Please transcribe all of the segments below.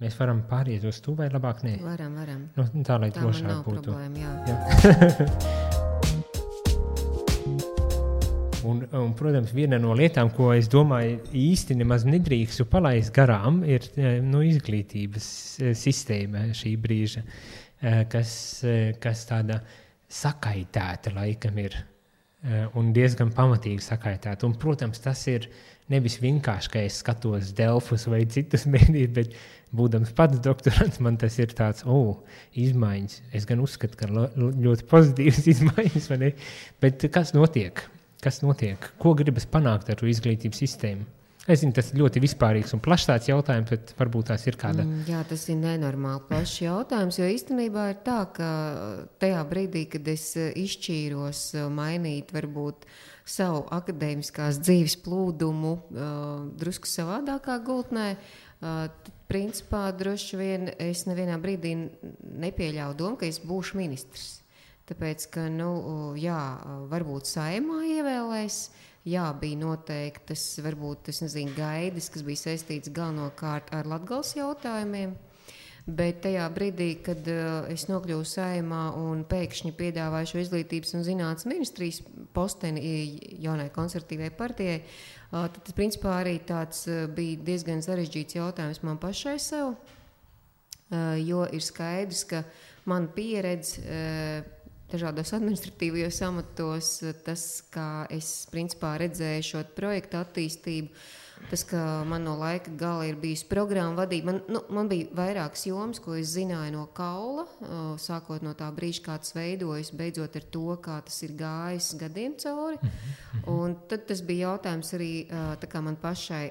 Mēs varam pāriet uz to vai labāk nē? Varam. Nu, tā, lai Tā man drošāk nav būtu. problēma, jā. Un, protams, viena no lietām, ko es domāju īsti nemaz nedrīkstu palaist garām, ir izglītības sistēma šī brīža, kas tāda sakaitēta laikam ir un diezgan pamatīgi sakaitēta. Un, protams, tas ir nevis vienkārši, ka es skatos Delfus vai citus mēdījus, bet būdams pats doktorants, man tas ir tāds, izmaiņas. Es gan uzskatu, ka ļoti pozitīvas izmaiņas, vai ne? Bet kas notiek? Ko gribas panākt ar izglītības sistēmu? Es zinu, tas ir ļoti vispārīgs un plašs tāds jautājums, bet varbūt tās ir kāda... Jā, tas ir nenormāli plašs jautājums, jo īstenībā ir tā, ka tajā brīdī, kad es izšķīros mainīt varbūt savu akadēmiskās dzīves plūdumu drusku savādākā gultnē, tad principā droši vien es nevienā brīdī nepieļauju domu, ka es būšu ministrs. Tāpēc, ka, varbūt Saeimā ievēlēs, bija noteiktas, varbūt, gaidas, kas bija saistīts galvenokārt ar Latgales jautājumiem, bet tajā brīdī, kad es nokļuvu Saeimā un pēkšņi piedāvāju šo izglītības un zinātnes ministrijas posteni jaunai konservatīvai partijai, tad, principā, arī tāds bija diezgan sarežģīts jautājums man pašai sev, jo ir skaidrs, ka man pieredze dažādos administratīvajos amatos, tas, kā es principā redzēju šo projektu attīstību, tas, ka man no laika gala ir bijusi programma vadība. Man bija vairākas jomas, ko es zināju no kaula, sākot no tā brīža, kā tas veidojas, beidzot ar to, kā tas ir gājis gadiem cauri. Un tad tas bija jautājums arī tā kā man pašai.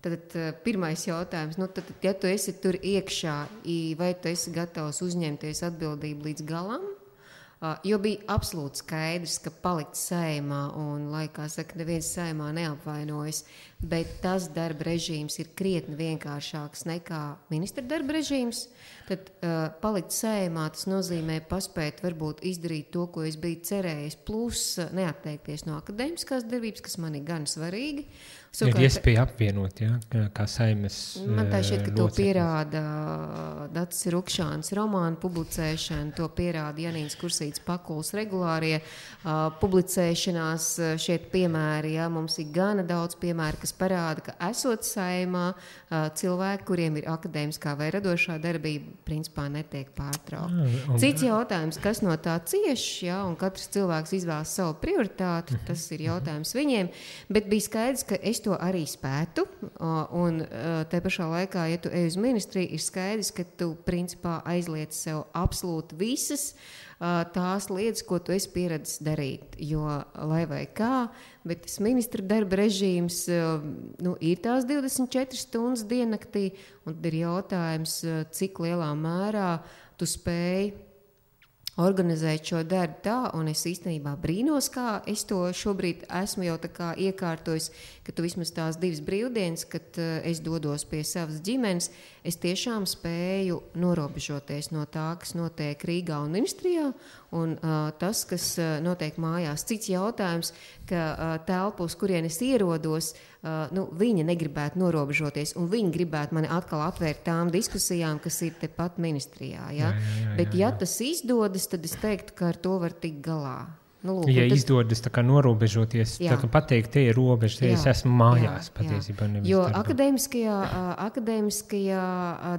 Tad pirmais jautājums, ja tu esi tur iekšā, vai tu esi gatavs uzņemties atbildību līdz galam? Jo bija absolūti skaidrs, ka palikt Saeimā un, lai kā saka, neviens Saeimā neapvainojas, bet tas darba režīms ir krietni vienkāršāks nekā ministra darba režīms. Tad palikt Saeimā, tas nozīmē paspēt varbūt izdarīt to, ko es biju cerējis, plus neatteikties no akadēmiskās darbības, kas man ir gan svarīgi. Ir iespēja apvienot, kā Saimas man tā šķiet, ka to pierāda Dacis Rukšāns romānu publicēšana, to pierāda Janīns Kursīts Pakuls regulārie publicēšanās šeit piemēri. Mums ir gana daudz piemēru, kas parāda, ka esot Saeimā cilvēki, kuriem ir akadēmiskā vai radošā darbība, principā netiek pārtraukta. Cits jautājums, kas no tā cieš, un katrs cilvēks izvēlas savu prioritāti, tas ir jautājums viņiem, bet bija skaidrs, ka es to arī spētu, un te pašā laikā, ja tu ej uz ministriju, ir skaidrs, ka tu principā aizliec sev absolūti visas tās lietas, ko tu esi pieredzis darīt, jo lai vai kā, bet tas ministra darba režīms ir tās 24 stundas diennaktī, un tad ir jautājums, cik lielā mērā tu spēj organizēt šo darbu tā, un es īstenībā brīnos, kā es to šobrīd esmu jau tā kā iekārtojis, ka tu vismaz tās 2 brīvdienas, kad es dodos pie savas ģimenes, es tiešām spēju norobežoties no tā, kas notiek Rīgā un ministrijā, un tas, kas notiek mājās. Cits jautājums, ka telpu, uz kurien es ierodos, viņa negribētu norobežoties, un viņi gribētu mani atkal atvērt tām diskusijām, kas ir tepat ministrijā. Ja? Bet ja tas izdodas, tad es teiktu, ka ar to var tikt galā. Izdodas tā kā norobežoties, tā kā pateikt, te ir robeža, te es esmu mājās patiesībā. Jo akadēmiskajā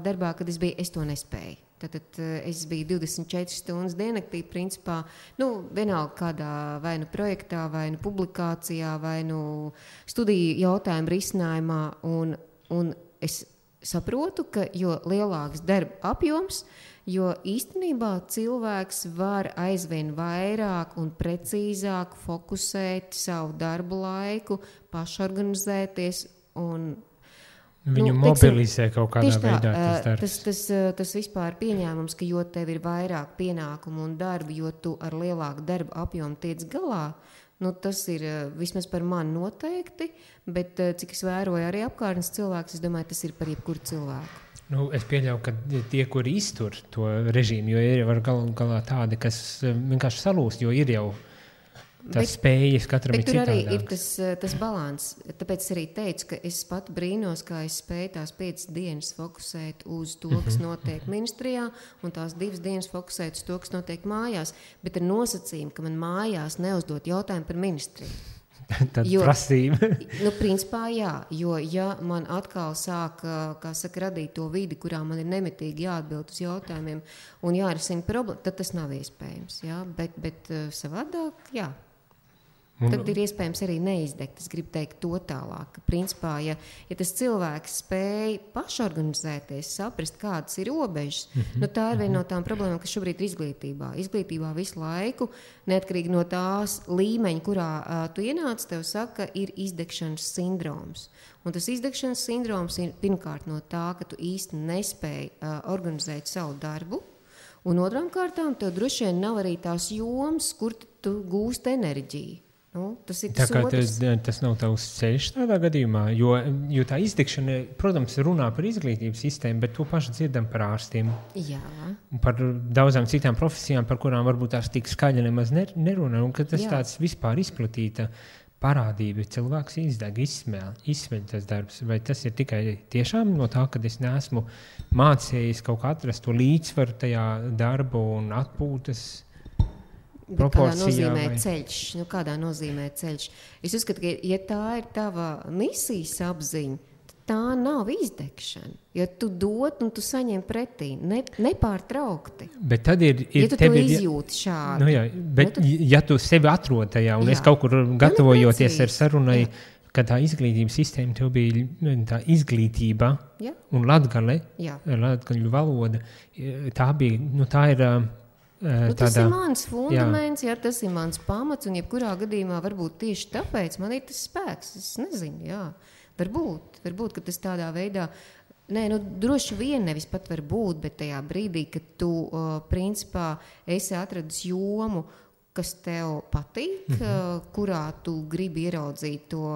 darbā, kad es biju, es to nespēju. Tad es biju 24 stundas diennaktī, principā, vienalga kādā vai nu projektā, vai nu publikācijā, vai nu studiju jautājumu risinājumā, un es saprotu, ka jo lielāks darba apjoms, jo īstenībā cilvēks var aizvien vairāk un precīzāk fokusēt savu darbu laiku, pašorganizēties un viņu mobilizē kaut kādā veidā tas darbs. Tas vispār pieņēmums, ka jo tev ir vairāk pienākumu un darbu, jo tu ar lielāku darbu apjomu tiec galā, tas ir vismaz par mani noteikti, bet cik es vēroju arī apkārtnes cilvēks, es domāju, tas ir par jebkuru cilvēku. Es pieļauju, ka tie, kuri iztur to režīmu, jo ir galā tādi, kas vienkārši salūst, jo ir jau Tas spējas katram ir citādāks. Bet tur arī ir tas balans. Tāpēc es arī teicu, ka es pat brīnos, kā es spēju tās 5 dienas fokusēt uz to, kas notiek ministrijā, un tās 2 dienas fokusēt uz to, kas notiek mājās. Bet ar nosacījumu, ka man mājās neuzdot jautājumu par ministriju. Tad prasība. Principā jā, jo ja man atkal sāk, kā saka, radīt to vidi, kurā man ir nemitīgi jāatbild uz jautājumiem un jārisina problēma, tad tas nav iespējams. Jā? Bet savādāk, jā. Tad ir iespējams arī neizdegt. Es gribu teikt to tālāk. Ka, principā, ja tas cilvēks spēj pašorganizēties, saprast, kādas ir robežas, tā ir viena no tām problēmām, kas šobrīd ir izglītībā. Izglītībā visu laiku, neatkarīgi no tās līmeņa, kurā tu ienāc, tev saka, ir izdegšanas sindroms. Un tas izdegšanas sindroms ir pirmkārt no tā, ka tu īsti nespēji organizēt savu darbu, un otrām kārtām tev droši vien nav arī tās jomas, kur tu gūst enerģiju. Tas ir tas nav tavs ceļš tādā gadījumā, jo tā izdegšana, protams, runā par izglītības sistēmu, bet to pašu dzirdam par ārstiem. Jā. Un par daudzām citām profesijām, par kurām varbūt tās tik skaļi nemaz nerunā, un ka tas tāds vispār izplatīta parādība, cilvēks izdeg, izsmeļ tas darbs. Vai tas ir tikai tiešām no tā, ka es neesmu mācījis kaut kā atrast to līdzsvaru tajā darbu un atpūtas proporcijā? Kādā nozīmē ceļš? Es uzskatu, ka ja tā ir tava misijas apziņa, tā nav izdegšana. Jo tu dod un tu saņem pretī, nepārtraukti. Bet tad ir ja tu izjūti šādi. Bet ja tu sevi atrod tajā, un es kaut kur gatavojoties ar sarunai, ka tā izglītības sistēma tev bija tā izglītība un latgaļu valoda, tā bija, tā ir... tas ir mans fundaments, tas ir mans pamats, un jebkurā gadījumā varbūt tieši tāpēc man ir tas spēks. Es nezinu, varbūt, ka tas tādā veidā, droši vien nevis pat var būt, bet tajā brīdī, kad tu principā esi atradis jomu, kas tev patīk, kurā tu gribi ieraudzīt to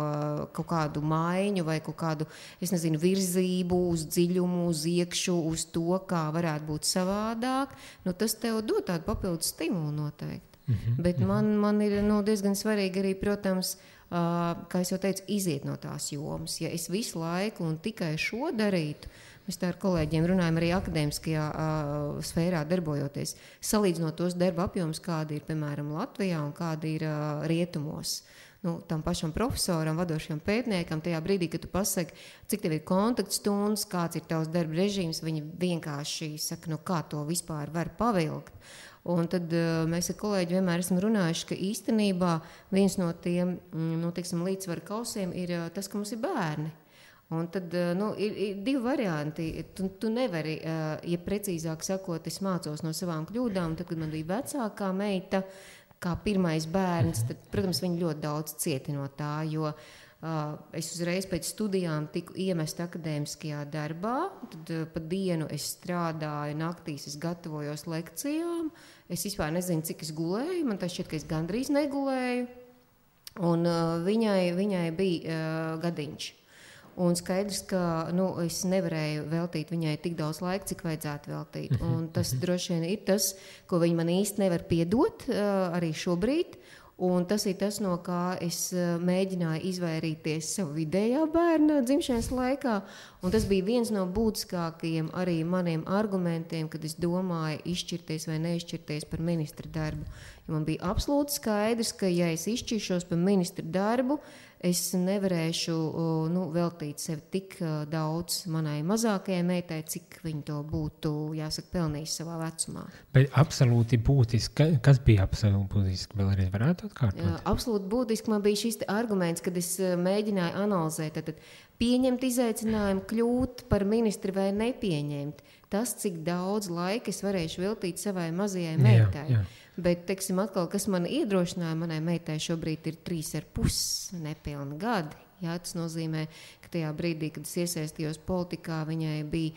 kaut kādu maiņu vai kaut kādu, virzību uz dziļumu, uz iekšu, uz to, kā varētu būt savādāk, tas tev dod tādu papildus stimulu noteikti. Bet man ir diezgan svarīgi arī, protams, kā es jau teicu, iziet no tās jomas. Ja es visu laiku un tikai šo darītu, mēs tā ar kolēģiem runājam arī akadēmiskajā sfērā darbojoties, salīdzinot tos darba apjomus, kādi ir, piemēram, Latvijā un kādi ir rietumos. Tam pašam profesoram, vadošajam pētniekam, tajā brīdī, kad tu pasaki, cik tev ir kontaktstundas, kāds ir tavs darba režīms, viņi vienkārši saka, kā to vispār var pavilkt. Un tad mēs ar kolēģi vienmēr esam runājuši, ka īstenībā viens no tiem līdzsvaru kausiem ir tas, ka mums ir bērni. Un tad ir 2 varianti. Tu nevari, ja precīzāk sakot, es mācos no savām kļūdām, tad, kad man bija vecākā meita, kā pirmais bērns, tad, protams, viņi ļoti daudz cieti no tā, jo es uzreiz pēc studijām tiku iemest akadēmiskajā darbā, tad pa dienu es strādāju, naktīs es gatavojos lekcijām, es vispār nezinu, cik es gulēju, man tā šķiet, ka es gandrīz negulēju, un viņai bija gadiņš. Un skaidrs, ka es nevarēju veltīt viņai tik daudz laika, cik vajadzētu veltīt. Un tas droši vien ir tas, ko viņa man īsti nevar piedot arī šobrīd. Un tas ir tas, no kā es mēģināju izvairīties savu vidējā bērna dzimšanas laikā. Un tas bija viens no būtiskākajiem arī maniem argumentiem, kad es domāju izšķirties vai neizšķirties par ministra darbu. Jo man bija absolūti skaidrs, ka ja es izšķiršos par ministra darbu, es nevarēšu veltīt sevi tik daudz manai mazākajai meitai, cik viņa to būtu, jāsaka, pelnījis savā vecumā. Bet absolūti būtiski, kas bija absolūti būtiski, vēl arī varētu atkārtot? Absolūti būtiski man bija šis arguments, kad es mēģināju analizēt, tad pieņemt izaicinājumu, kļūt par ministri vai nepieņemt. Tas, cik daudz laika es varēšu veltīt savai mazajai meitai. Jā. Bet, teiksim, atkal, kas man iedrošināja, manai meitai šobrīd ir 3,5 nepilni gadi. Jā, tas nozīmē, ka tajā brīdī, kad es iesaistījos politikā, viņai bija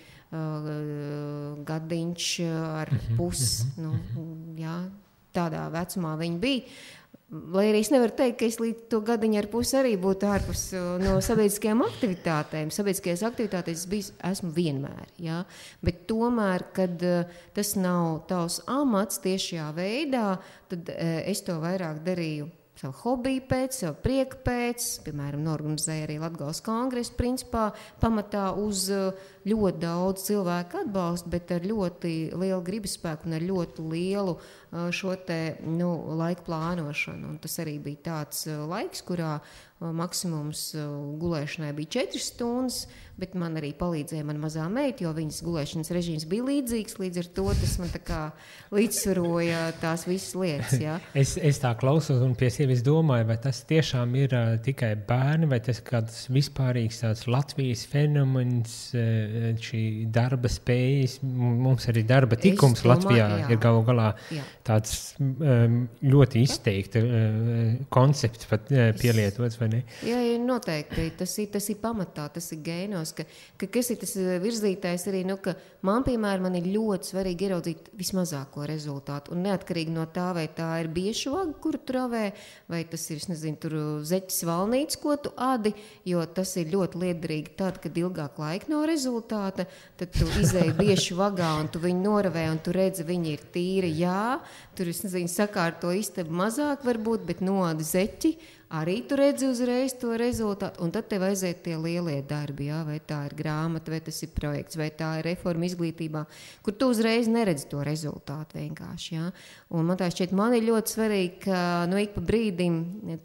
gadiņš ar pusi. Tādā vecumā viņa bija. Lai arī es nevaru teikt, ka es līdz to gadiņu ar pusi arī būtu ārpus no sabiedriskajām aktivitātēm. Sabiedriskajās aktivitātēs esmu vienmēr. Jā? Bet tomēr, kad tas nav tavs amats tiešajā veidā, tad es to vairāk darīju savu hobiju pēc, savu prieku pēc, piemēram, norganizēja arī Latgales kongresu, principā pamatā uz ļoti daudz cilvēku atbalstu, bet ar ļoti lielu gribasspēku un ar ļoti lielu šo te laiku plānošanu. Un tas arī bija tāds laiks, kurā maksimums gulēšanai bija 4 stundas, bet man arī palīdzēja mana mazā meita, jo viņas gulēšanas režīms bija līdzīgs, līdz ar to tas man tā kā līdzsvaroja tās visas lietas. Ja? Es tā klausos un pie sevis domāju, vai tas tiešām ir tikai bērni, vai tas kāds vispārīgs tāds Latvijas fenomens, šī darba spējas, mums arī darba tikums Latvijā ir galu galā tāds ļoti izteikti koncepts pat pielietots, vai ne? Jā, noteikti. Tas ir pamatā, tas ir gēnos, ka kas ir tas virzītājs arī, ka man, piemēram, man ir ļoti svarīgi ieraudzīt vismazāko rezultātu. Un neatkarīgi no tā, vai tā ir biešu vaga, kuru tu ravē, vai tas ir, tur zeķis valnīts, ko tu adi, jo tas ir ļoti liederīgi tad, kad ilgāk laika nav rezultāta, tad tu izēji biešu vagā un tu viņu noravē un tu redzi, viņi ir tīri, tur, sakārto istabu mazāk varbūt, bet noadi zeķi, arī tu redzi uzreiz to rezultātu, un tad tev aiziet tie lielie darbi, vai tā ir grāmata, vai tas ir projekts, vai tā ir reforma izglītībā, kur tu uzreiz neredzi to rezultātu vienkārši, Un man tā šķiet, man ir ļoti svarīgi, ka ik pa brīdim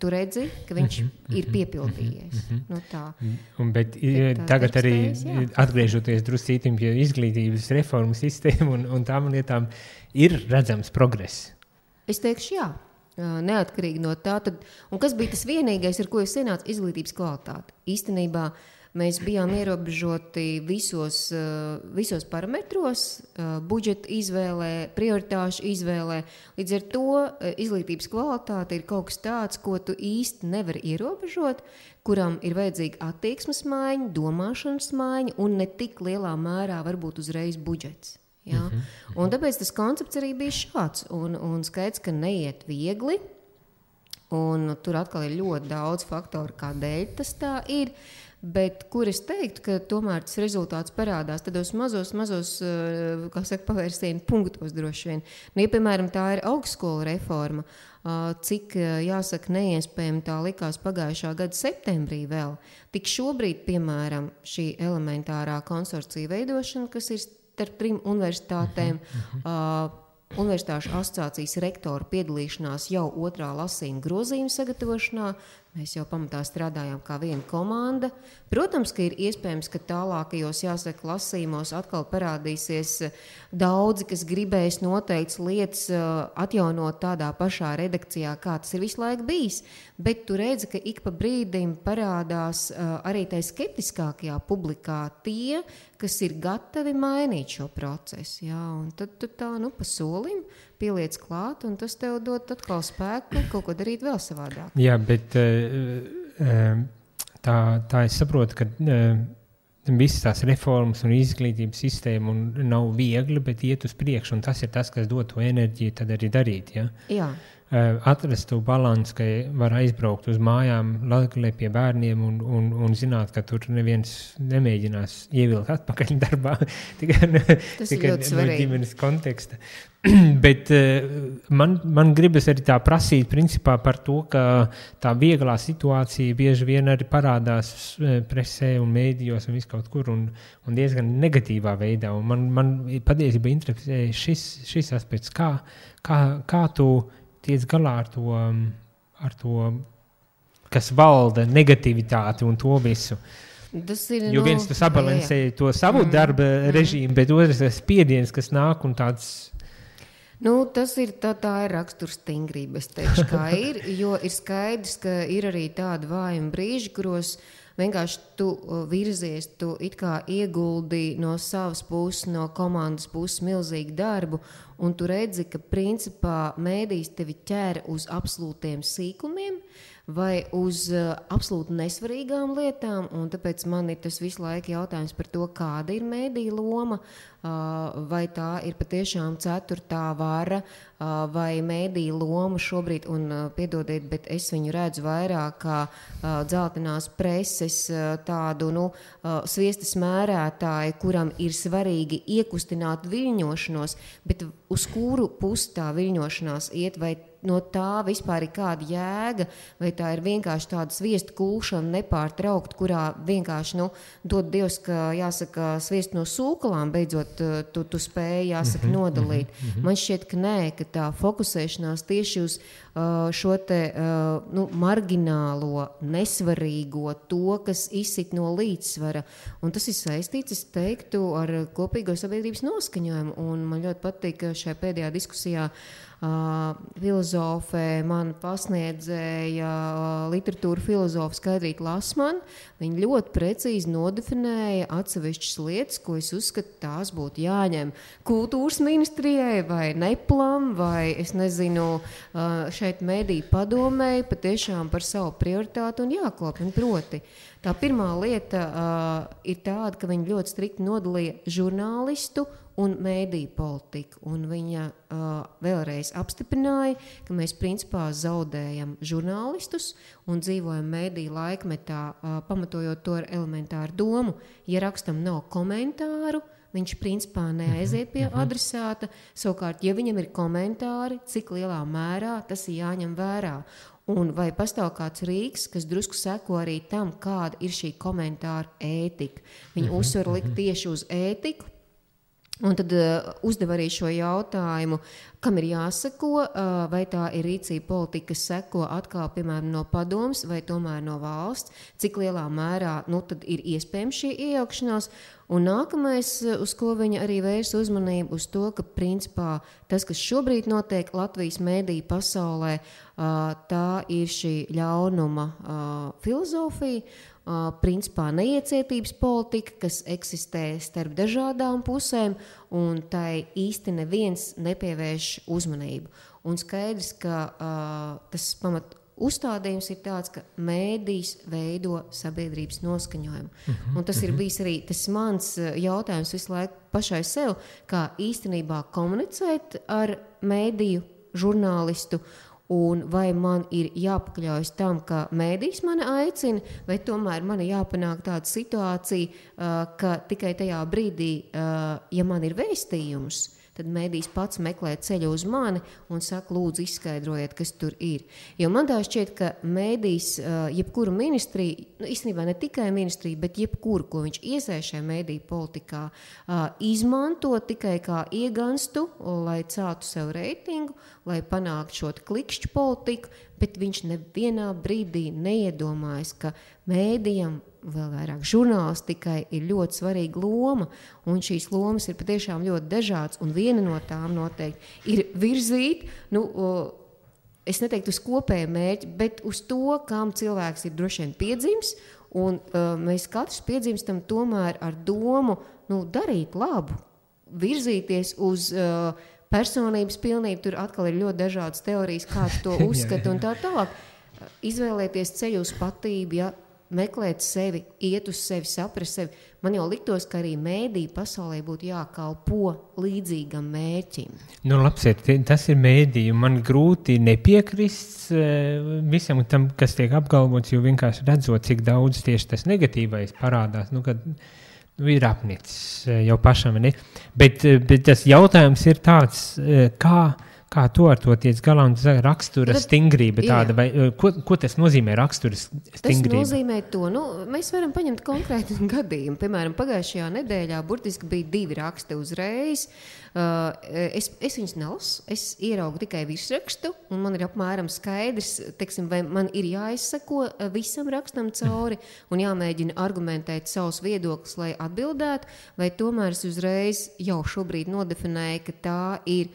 tu redzi, ka viņš ir piepildījies. Tā. Bet tagad arī atgriežoties druscītim pie izglītības reformu sistēmu un tām lietām, ir redzams progress? Es teikšu, jā. Neatkarīgi no tā. Un kas bija tas vienīgais, ar ko es ienācu? Izglītības kvalitāte. Īstenībā mēs bijām ierobežoti visos parametros, budžeta izvēlē, prioritāšu izvēlē. Līdz ar to izglītības kvalitāte ir kaut kas tāds, ko tu īsti nevari ierobežot, kuram ir vajadzīga attieksmes maiņa, domāšanas maiņa un ne tik lielā mērā varbūt uzreiz budžets. Ja? Un tāpēc tas koncepts arī bija šāds. Un skaidrs, ka neiet viegli. Un tur atkal ir ļoti daudz faktoru, kādēļ tas tā ir. Bet kur es teiktu, ka tomēr tas rezultāts parādās tādos mazos, pavērsienu punktos droši vien. Ja, piemēram, tā ir augstskola reforma, cik, jāsaka, neiespējami tā likās pagājušā gada septembrī vēl. Tik šobrīd, piemēram, šī elementārā konsorcija veidošana, kas ir starp 3 universitātēm, Universitāšu asociācijas rektoru piedalīšanās jau 2. lasījuma grozījuma sagatavošanā. Mēs jau pamatā strādājām kā viena komanda. Protams, ka ir iespējams, ka tālākajos, jāsaka, lasījumos atkal parādīsies daudzi, kas gribēs noteikts lietas atjaunot tādā pašā redakcijā, kā tas ir visu laiku bijis. Bet tu redzi, ka ik pa brīdim parādās arī tai skeptiskākajā publikā tie, kas ir gatavi mainīt šo procesu. Jā, un tad tu tā, pa solim pieliec klāt, un tas tev dod atkal spēku kaut ko darīt vēl savādāk. Jā, bet tā es saprotu, ka visas tās reformas un izglītības sistēma nav viegli, bet iet uz priekšu, un tas ir tas, kas dod to enerģiju tad arī darīt. Ja? Jā. Atrast to balansu, ka var aizbraukt uz mājām Latgalē pie bērniem un zināt, ka tur neviens nemēģinās ievilkt atpakaļ darbā, tikai no ģimenes konteksta. Bet man gribas arī tā prasīt principā par to, ka tā vieglā situācija bieži vien arī parādās presē un mēdījos un viskaut kur un diezgan negatīvā veidā. Un man patiesībā interesē šis aspekts, kā tu tiec galā ar to, kas valda negativitāti un to visu. Jo viens tu sabalansēji to savu darba režīmu, bet otrs ir spiediens, kas nāk un tāds... Tas ir tā ir rakstursstingrība, es teikšu, kā ir, jo ir skaidrs, ka ir arī tādi vājumi brīži, kuros vienkārši tu virzies, tu it kā ieguldi no savas puses, no komandas puses milzīgu darbu, un tu redzi, ka principā mēdījis tevi ķer uz absolūtiem sīkumiem vai uz absolūti nesvarīgām lietām, un tāpēc man ir tas visu laiku jautājums par to, kāda ir mēdīja loma, vai tā ir patiešām 4. vara, vai mēdīja loma šobrīd, un piedodiet, bet es viņu redzu vairāk kā dzeltenās preses tādu, sviestas mērētāju, kuram ir svarīgi iekustināt viļņošanos, bet uz kuru pusi tā viļņošanās iet, vai no tā vispār ir kāda jēga, vai tā ir vienkārši tāda sviestu kulšana nepārtraukt, kurā vienkārši, dod Dievs, ka jāsaka sviestu no sūkalām, beidzot tu spēji, jāsaka, nodalīt. Man šķiet, ka nē, ka tā fokusēšanās tieši uz šo te marginālo, nesvarīgo, to, kas izsit no līdzsvara. Un tas ir saistīts, es teiktu, ar kopīgo sabiedrības noskaņojumu. Un man ļoti patīk, ka šajā pēdējā diskusijā filozofē man pasniedzēja literatūra filozofa Skaidrīta Lasmana. Viņa ļoti precīzi nodefinēja atsevišķas lietas, ko es uzskatu, tās būtu jāņem kultūras ministrijai vai neplam, vai es nezinu, šeit mediju padomēji patiešām par savu prioritātu un jāklopina proti. Tā pirmā lieta ir tāda, ka viņi ļoti strikti nodalīja žurnālistu un mēdīju politiku. Un viņa vēlreiz apstiprināja, ka mēs principā zaudējam žurnālistus un dzīvojam mēdīju laikmetā, pamatojot to ar elementāru domu. Ja rakstam nav komentāru, viņš principā neaiziet pie adresāta. Savukārt, ja viņam ir komentāri, cik lielā mērā tas ir jāņem vērā. Un vai pastāv kāds rīks, kas drusku seko arī tam, kāda ir šī komentāra ētika. Viņi uzsver likt tieši uz ētiku. Un tad uzdev arī šo jautājumu, kam ir jāseko, vai tā ir rīcība politika, kas seko atkal, piemēram, no padomas vai tomēr no valsts, cik lielā mērā tad ir iespējams šī iejaukšanās. Un nākamais, uz ko viņa arī vērs uzmanību, uz to, ka principā tas, kas šobrīd notiek Latvijas mēdīju pasaulē, tā ir šī ļaunuma filozofija, principā neiecietības politika, kas eksistē starp dažādām pusēm, un tai īsti neviens nepievērš uzmanību. Un skaidrs, ka tas pamat uzstādījums ir tāds, ka mēdījis veido sabiedrības noskaņojumu. Un tas ir bijis arī tas mans jautājums visu laiku pašai sev, kā īstenībā komunicēt ar mēdīju žurnālistu, un vai man ir jāpakļaujas tam, ka mēdījis mani aicina, vai tomēr man ir jāpanāk tāda situācija, ka tikai tajā brīdī, ja man ir vēstījums, tad mēdījis pats meklē ceļu uz mani un saka, lūdzu, izskaidrojiet, kas tur ir. Jo man tā šķiet, ka mēdījis jebkuru ministriju, īstenībā ne tikai ministriju, bet jebkuru, ko viņš iesaist šajā mēdīju politikā, izmanto tikai kā ieganstu, lai celtu sev reitingu, lai panāktu šo klikšķu politiku, bet viņš nevienā brīdī neiedomājas, ka mēdījam, vēl vairāk žurnālistikai, ir ļoti svarīga loma, un šīs lomas ir patiešām ļoti dažādas, un viena no tām noteikti ir virzīt, es neteiktu uz kopēju mērķi, bet uz to, kam cilvēks ir droši vien piedzimis, un mēs katrs piedzimstam tomēr ar domu darīt labu, virzīties uz personības pilnību, tur atkal ir ļoti dažādas teorijas, kāds to uzskata un tā tālāk. Izvēlēties ceļu uz patību, meklēt sevi, iet uz sevi, saprast sevi. Man jau liktos, ka arī mēdīju pasaulē būtu jākalpo līdzīgam mērķim. Labsiet, tas ir mēdīju. Man grūti nepiekrist visam tam, kas tiek apgalvots, jo vienkārši redzot, cik daudz tieši tas negatīvais parādās, kad ir apnicis jau pašam. Ne? Bet tas jautājums ir tāds, kā to ar to tiec galā un rakstura stingrība tāda, vai ko tas nozīmē rakstura stingrība? Tas nozīmē to, mēs varam paņemt konkrētu gadījumu. Piemēram, pagājušajā nedēļā burtiski bija 2 raksti uzreiz. Es viņus nelasu, es ieraugu tikai virsrakstu, un man ir apmēram skaidrs, vai man ir jāizsako visam rakstam cauri un jāmēģina argumentēt savus viedokļus, lai atbildētu, vai tomēr es uzreiz jau šobrīd nodefinēju, ka tā ir.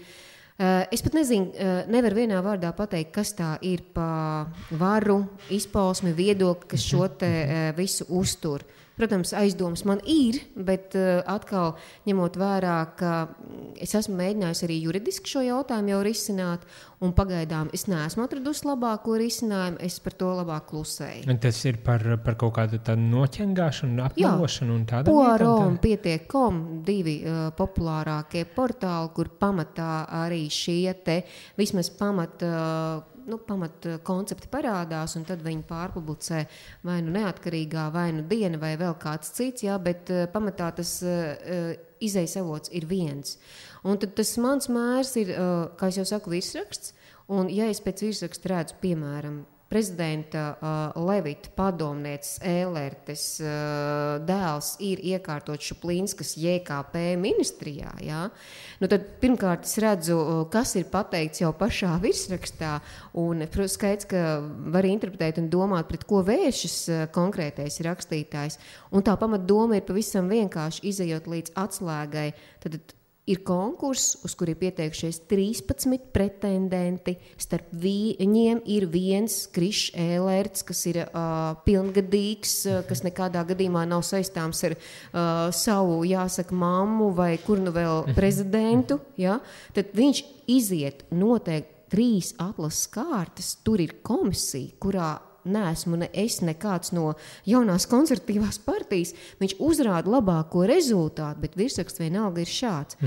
Es pat nezinu, nevaru vienā vārdā pateikt, kas tā ir pa varu, izpausmi, viedokli, kas šo te visu uztur. Protams, aizdomas man ir, bet atkal ņemot vērā, ka es esmu mēģinājusi arī juridiski šo jautājumu jau risināt, un pagaidām es neesmu atradusi labāko risinājumu, es par to labāk klusēju. Un tas ir par kaut kādu tādu noķengāšanu, apmelošanu un tādu? Poaro un Pietiek.com, 2 populārākie portāli, kur pamatā arī šie te vismaz pamat koncepti parādās, un tad viņi pārpublicē vai neatkarīgā, vai diena, vai vēl kāds cits, bet pamatā tas izejas avots ir viens. Un tad tas mans mērs ir, kā es jau saku, virsraksts, Un, ja es pēc virsraksta redzu, piemēram, prezidenta Levita padomnieces Ēlertes dēls ir iekārtots Šuplīnskas JKP ministrijā, jā? Nu tad pirmkārt es redzu, kas ir pateikts jau pašā virsrakstā, un skaidrs, ka var interpretēt un domāt, pret ko vēršas konkrētais rakstītājs. Un tā pamatdoma ir pavisam vienkārši izejot līdz atslēgai. Tad ir konkurss, uz kuri ir pieteikušies 13 pretendenti. Starp viņiem ir viens Krišs Ēlerts, kas ir pilngadīgs, kas nekādā gadījumā nav saistāms ar savu, jāsaka, mammu vai kur nu vēl prezidentu. Ja? Tad viņš iziet noteikti 3 atlases kārtas. Tur ir komisija, kurā neesmu ne es, ne kāds no jaunās konservatīvās partijas. Viņš uzrāda labāko rezultātu, bet virsraksts vienalga ir šāds.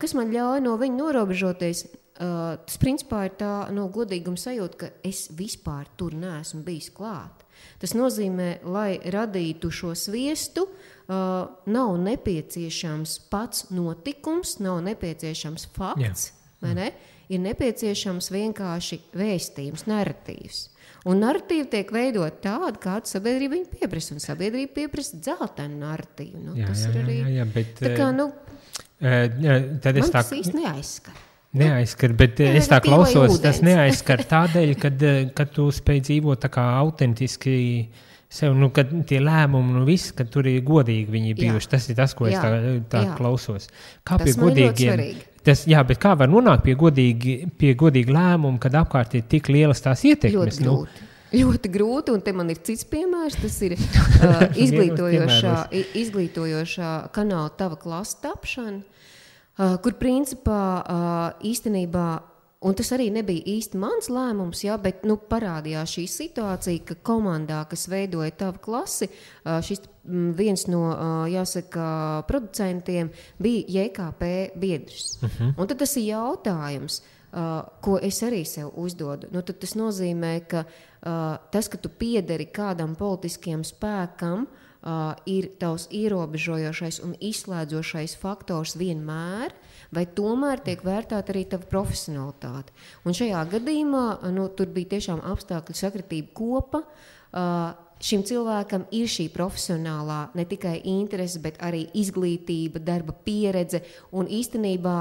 Kas man ļauj no viņa norobežoties? Tas principā ir tā godīguma sajūta, ka es vispār tur neesmu bijis klāt. Tas nozīmē, lai radītu šo sviestu, nav nepieciešams pats notikums, nav nepieciešams fakts, vai ne? Ir nepieciešams vienkārši vēstījums, narratīvs. Un narratīva tiek veidot tāda, kāda sabiedrība viņa pieprasa. Un sabiedrība pieprasa dzeltenu narratīvu. Tas ir arī... bet, tā kā, tad man tas īsti neaizskar. Neaizskar, bet es tā klausos, tas neaizskar tādēļ, kad tu spēj dzīvot tā kā autentiski sev, kad tie lēmumi, viss, kad tur ir godīgi viņi bijuši. Tas ir tas, ko es tā klausos. Kā tas pie godīgiem... Bet kā var nonākt pie godīga lēmuma, kad apkārt ir tik lielas tās ietekmes? Ļoti grūti, un te man ir cits piemērs. Tas ir izglītojošā kanāla Tava klasa tapšana, kur principā īstenībā, un tas arī nebija īsti mans lēmums, bet parādījās šī situācija, ka komandā, kas veidoja Tavu klasi, šis viens no, jāsaka, producentiem bija JKP biedrs. Un tad tas ir jautājums, ko es arī sev uzdodu. Tad tas nozīmē, ka tas, ka tu piederi kādam politiskiem spēkam, ir tavs ierobežojošais un izslēdzošais faktors vienmēr, vai tomēr tiek vērtēta arī tava profesionalitāte. Un šajā gadījumā tur bija tiešām apstākļu sakritība kopa. Šim cilvēkam ir šī profesionālā ne tikai interese, bet arī izglītība, darba pieredze, un īstenībā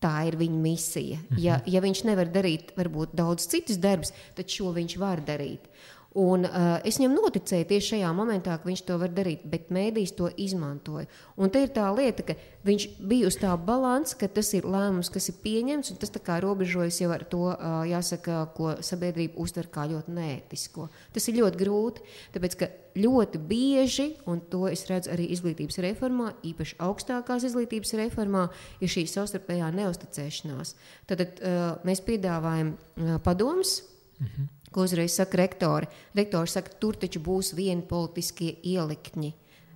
tā ir viņa misija. Ja viņš nevar darīt varbūt daudz citus darbus, tad šo viņš var darīt. Un es viņam noticēju tieši šajā momentā, ka viņš to var darīt, bet mēdījis to izmantoja. Un te ir tā lieta, ka viņš bija uz tā balansa, ka tas ir lēmums, kas ir pieņemts, un tas tā kā robežojas jau ar to, jāsaka, ko sabiedrība uztver kā ļoti neētisko. Tas ir ļoti grūti, tāpēc, ka ļoti bieži, un to es redzu arī izglītības reformā, īpaši augstākās izglītības reformā, ir šī savstarpējā neusticēšanās. Tad mēs piedāvājam padomus, ko uzreiz saka rektori. Rektori saka, tur taču būs vieni politiskie ielikņi.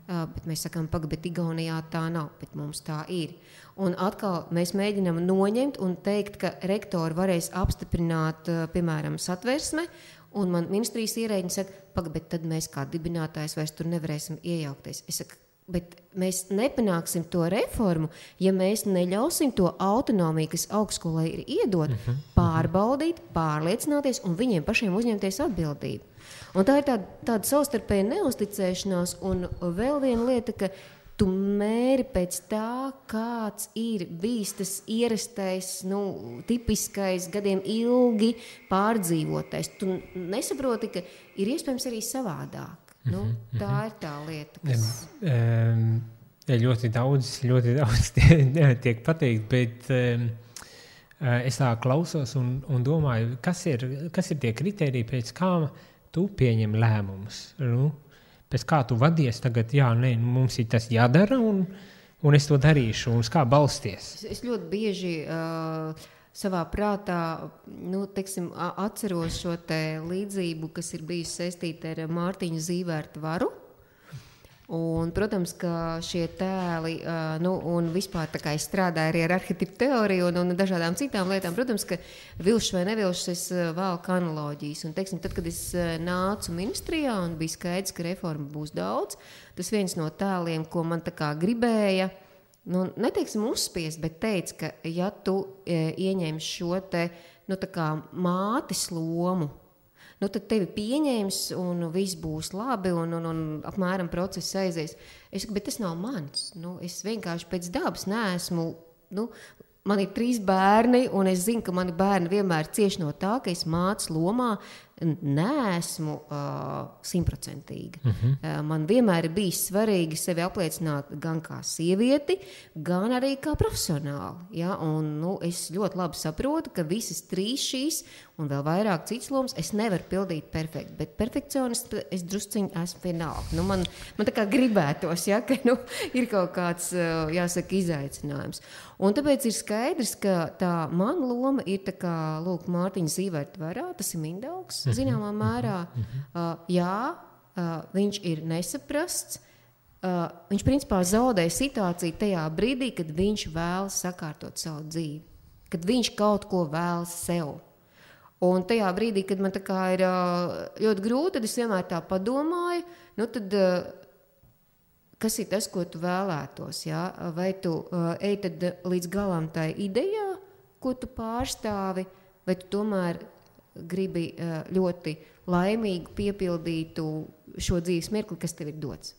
Bet mēs sakām, bet Igaunijā tā nav, bet mums tā ir. Un atkal mēs mēģinām noņemt un teikt, ka rektori varēs apstiprināt, piemēram, satversme, un man ministrijas ierēģi saka, bet tad mēs kā dibinātājs vairs tur nevarēsim iejaukties. Es saku, bet mēs nepanāksim to reformu, ja mēs neļausim to autonomiju, kas augstskolai ir iedot, pārbaudīt, pārliecināties un viņiem pašiem uzņemties atbildību. Un tā ir tāda savstarpēja neusticēšanās, un vēl viena lieta, ka tu mēri pēc tā, kāds ir bijis tas ierastais, tipiskais, gadiem ilgi pārdzīvotais. Tu nesaproti, ka ir iespējams arī savādāk. Tā ir tā lieta, kas... Ļoti daudz tiek pateikt, bet es tā klausos un domāju, kas ir tie kriteriji, pēc kā tu pieņem lēmumus? Pēc kā tu vadies tagad, mums ir tas jādara un es to darīšu, un uz kā balsties? Es ļoti bieži... savā prātā, atceros šo te līdzību, kas ir bijusi saistīta ar Mārtiņu Zīvērta varu. Un, protams, ka šie tēli, un vispār tā kā es strādāju arī ar arhetipu teoriju un dažādām citām lietām, protams, ka vilšs vai nevilšs es valku analoģijas. Un, tad, kad es nācu ministrijā un bija skaidrs, ka reforma būs daudz, tas viens no tēliem, ko man tā kā gribēja, neteiksim uzspiest, bet teica, ka ja tu ieņem šo te, tā kā mātes lomu, tad tevi pieņems un viss būs labi un apmēram process aizies. Es saku, bet tas nav mans. Es vienkārši pēc dabas neesmu, man ir 3 bērni un es zinu, ka mani bērni vienmēr cieš no tā, ka es mātes lomā neesmu 100%. Man vienmēr ir bijis svarīgi sevi apliecināt gan kā sievieti, gan arī kā profesionāli. Ja? Un, es ļoti labi saprotu, ka visas 3 šīs un vēl vairāk citas lomas es nevaru pildīt perfekti, bet perfekcionists es drusciņi esmu vienalga. Man tā kā gribētos, ja, ka ir kaut kāds, jāsaka, izaicinājums. Un tāpēc ir skaidrs, ka tā mana loma ir tā kā, Mārtiņa Zīvērta varā, tas ir Mindaugs, zināmā mērā. Viņš ir nesaprasts. Viņš principā zaudē situāciju tajā brīdī, kad viņš vēlas sakārtot savu dzīvi. Kad viņš kaut ko vēlas sev. Un tajā brīdī, kad man tā kā ir ļoti grūti, tad es vienmēr tā padomāju, tad kas ir tas, ko tu vēlētos? Ja? Vai tu ej tad līdz galam tai idejā, ko tu pārstāvi, vai tu tomēr gribi ļoti laimīgu piepildītu šo dzīves mirkli, kas tev ir dots?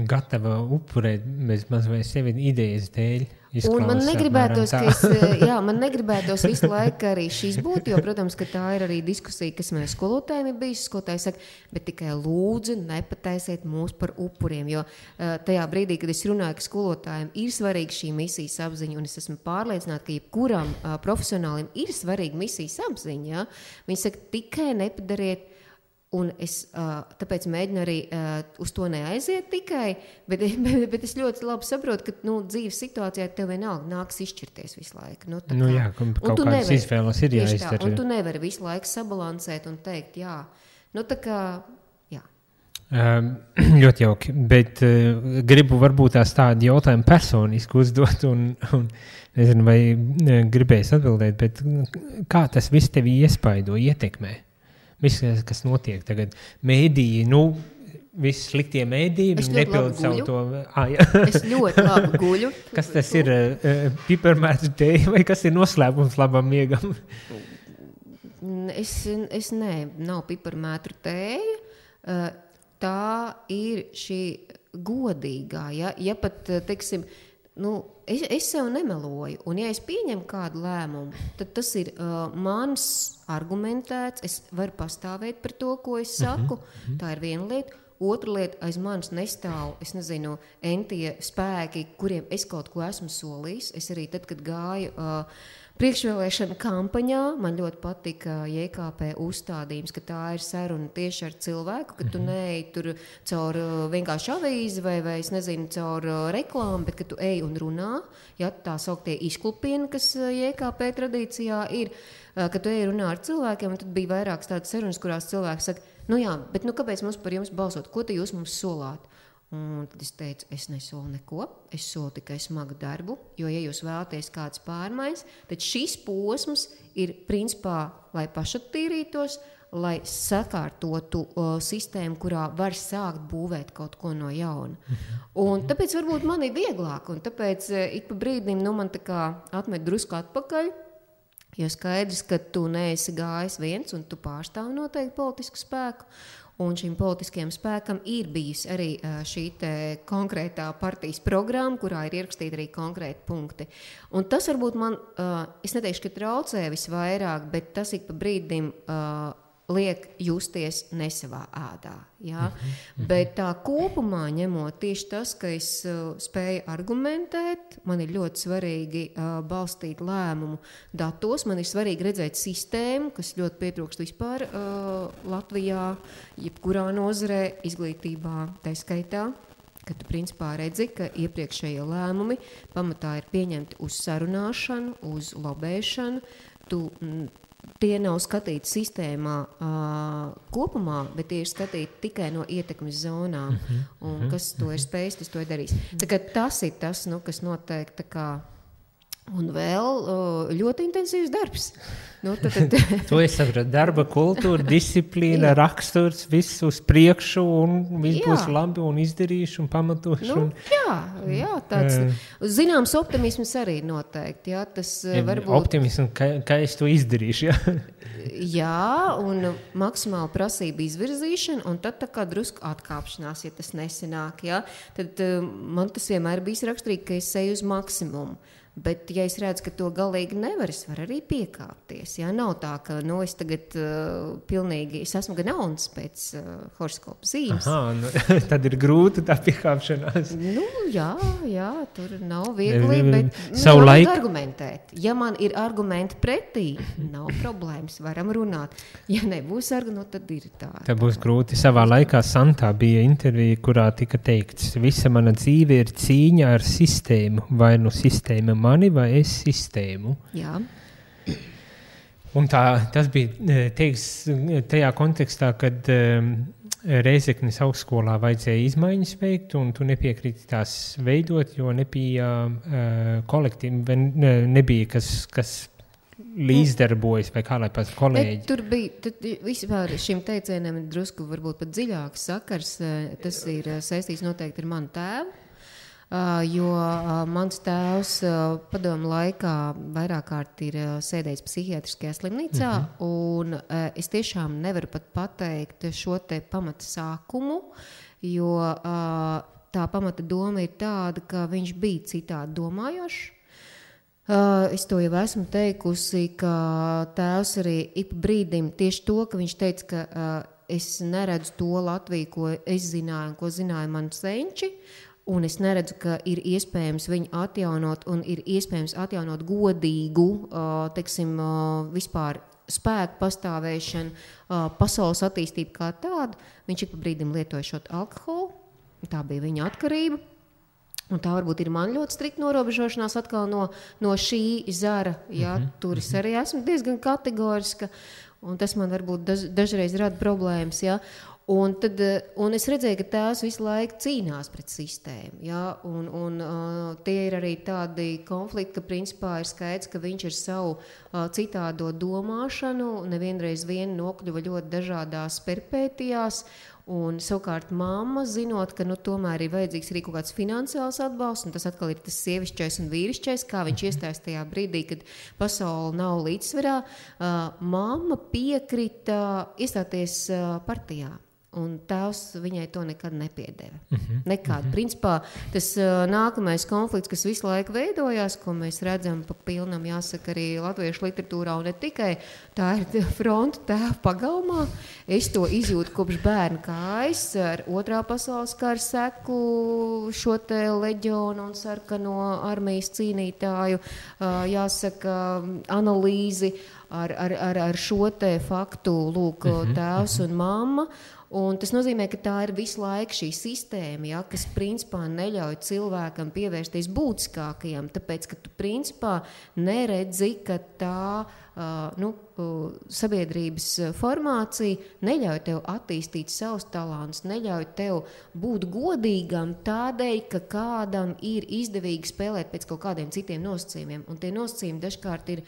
Gatava upurēt bez maz vai sevi idejas dēļ. Un man negribētos, man negribētos visu laiku arī šīs būt, jo, protams, ka tā ir arī diskusija, kas man skolotājiem ir bijusi. Skolotāji saka, bet tikai lūdzu nepataisiet mūs par upuriem, jo tajā brīdī, kad es runāju, ka skolotājiem ir svarīga šī misijas apziņa, un es esmu pārliecināta, ka jebkuram profesionālim ir svarīga misijas apziņa. Ja? Viņi saka, tikai nepadariet. Un es tāpēc mēģinu arī uz to neaiziet tikai, bet es ļoti labi saprotu, ka dzīves situācijā tev vienalga nāks izšķirties visu laiku. Kaut kādas izvēles ir jāizdara. Un tu nevari visu laiku sabalansēt un teikt, jā. Tā kā, jā. Ļoti jauki, bet gribu varbūt tādu jautājumu personiski uzdot un nezinu, vai gribēs atbildēt, bet kā tas viss tevi iespaido, ietekmē? Viss, kas notiek tagad, mēdīji, visi sliktie mēdīji, viņi nepild savu to. Es ļoti labi guļu. Kas tas ir? Piparmētru tēja vai kas ir noslēpums labam miegam? Nav piparmētru tēja. Tā ir šī godīgā. Ja pat, teiksim, es sev nemeloju, un ja es pieņemu kādu lēmumu, tad tas ir mans argumentēts, es varu pastāvēt par to, ko es saku, tā ir viena lieta. Otra lieta, aiz manis nestāv, es nezinu, entie spēki, kuriem es kaut ko esmu solījis. Es arī tad, kad gāju priekšvēlēšana kampaņā, man ļoti patika JKP uzstādījums, ka tā ir saruna tieši ar cilvēku, ka tu neej tur caur vienkārši avīzi vai es nezinu, caur reklāmu, bet ka tu ej un runā, ja tā sauktie izklupieni, kas JKP tradīcijā ir, ka tu ej runā ar cilvēkiem, un tad bija vairākas tādas sarunas, kurās cilvēki saka, bet kāpēc mums par jums balsot? Ko te jūs mums solāt? Un tad es teicu, es nesolu neko, es solu tikai smagu darbu, jo, ja jūs vēlaties kādas pārmaiņas, tad šis posms ir principā, lai pašattīrītos, lai sakārtotu sistēmu, kurā var sākt būvēt kaut ko no jauna. Un tāpēc varbūt man ir vieglāk, un tāpēc ik pa brīdim man tā kā atmet drusku atpakaļ, jo skaidrs, ka tu neesi gājis viens un tu pārstāvi noteikti politisku spēku. Un šim politiskajam spēkam ir bijis arī šī konkrētā partijas programma, kurā ir ierakstīti arī konkrēti punkti. Un tas varbūt man, es neteikšu, ka traucē visvairāk, bet tas ik pa brīdim liek justies nesavā ādā. Ja? Bet tā kopumā ņemot tieši tas, ka es spēju argumentēt, man ir ļoti svarīgi balstīt lēmumu datos, man ir svarīgi redzēt sistēmu, kas ļoti pietrūkst vispār Latvijā, jebkurā nozarē, izglītībā, tā skaitā, ka tu principā redzi, ka iepriekšējie lēmumi pamatā ir pieņemti uz sarunāšanu, uz lobēšanu, tie nav skatīti sistēmā kopumā, bet tie ir skatīti tikai no ietekmes zonām. Un kas to ir spējis, tas to ir darījis. Tā kā tas ir tas, kas noteikti tā kā Un vēl ļoti intensīvs darbs. Nu, tad. To es saprotu. Darba kultūra, disciplīna, raksturs, viss uz priekšu un viss būs labi un izdarīšu un pamatošu. Nu, jā, tāds zināms optimisms arī noteikti. Jā, tas varbūt. Optimisms, ka es to izdarīšu, jā. Jā, un maksimāla prasība izvirzīšana, un tad tā kā drusku atkāpšanās, ja tas nesenāk, jā. Tad man tas vienmēr bijis raksturīgi, ka es eju uz maksimumu. Bet, ja es redzu, ka to galīgi nevar, es varu arī piekāpties. Jā, nav tā, ka es tagad pilnīgi, es esmu gan jauns pēc horoskopa zīmes. Tad ir grūti tā piekāpšanās. Nu, jā, tur nav viegli, bet laik... argumentēt. Ja man ir argumenti pretī, nav problēmas, varam runāt. Ja nebūs argumenti, tad ir tā. Tā būs grūti. Savā laikā Santā bija intervija, kurā tika teikts, visa mana dzīve ir cīņa ar sistēmu, vai nu sistēma mani vai es sistēmu. Jā. Un tas bija teiks tajā kontekstā, kad Rēzeknes augstskolā vajadzēja izmaiņas veikt, un tu nepiekriti tās veidot, jo nebija kolektīvi, nebija kas līdzdarbojas, vai kā lai pats kolēģi. Tur bija, vispār šim teicienam drusku varbūt pat dziļāks sakars, tas ir saistīts noteikti ar manu tēvu. Jo mans tēvs padomu laikā vairāk kārt ir sēdējis psihiatriskajā slimnīcā, un es tiešām nevaru pat pateikt šo te pamata sākumu, jo tā pamata doma ir tāda, ka viņš bija citādi domājošs. Es to jau esmu teikusi, ka tēvs arī ik brīdim tieši to, ka viņš teica, ka es neredzu to Latviju, ko es zināju un ko zināja mani senči, un es neredzu, ka ir iespējams viņu atjaunot un ir iespējams atjaunot godīgu, teiksim, vispār spēku pastāvēšanu, pasaules attīstību kā tādu. Viņš ik pa brīdim lietoja šo alkoholu, tā bija viņa atkarība. Un tā varbūt ir man ļoti strikta norobežošanās atkal no šī zara. Jā, tur es arī esmu diezgan kategoriska, un tas man varbūt dažreiz rada problēmas, jā. Un es redzēju, ka tēvs visu laiku cīnās pret sistēmu. Ja? Un tie ir arī tādi konflikti, ka principā ir skaidrs, ka viņš ar savu citādo domāšanu nevienreiz vien nokļuva ļoti dažādās perpētijās. Un savukārt mamma, zinot, ka tomēr ir vajadzīgs arī kaut kāds finansiāls atbalsts, un tas atkal ir tas sievišķais un vīrišķais, kā viņš iestājas tajā brīdī, kad pasaule nav līdzsvarā, mamma piekrita iestāties partijā. Un tēvs viņai to nekad nepiedeva. Nekad. Principā tas nākamais konflikts, kas visu laiku veidojās, ko mēs redzam pa pilnam, jāsaka, arī latviešu literatūrā, un ne tikai, tā ir fronta tēva pagalmā. Es to izjūtu kopš bērna kājas ar Otrā pasaules kara seku, šo te leģionu un sarkano armijas cīnītāju, jāsaka, analīzi ar šo te faktu, lūk, tēvs un mamma. Un tas nozīmē, ka tā ir visu laiku šī sistēma, ja, kas principā neļauj cilvēkam pievērsties būtiskākajam, tāpēc, ka tu principā neredzi, ka tā sabiedrības formācija neļauj tev attīstīt savus talantus, neļauj tev būt godīgam tādēļ, ka kādam ir izdevīgi spēlēt pēc kaut kādiem citiem nosacījumiem. Un tie nosacījumi dažkārt ir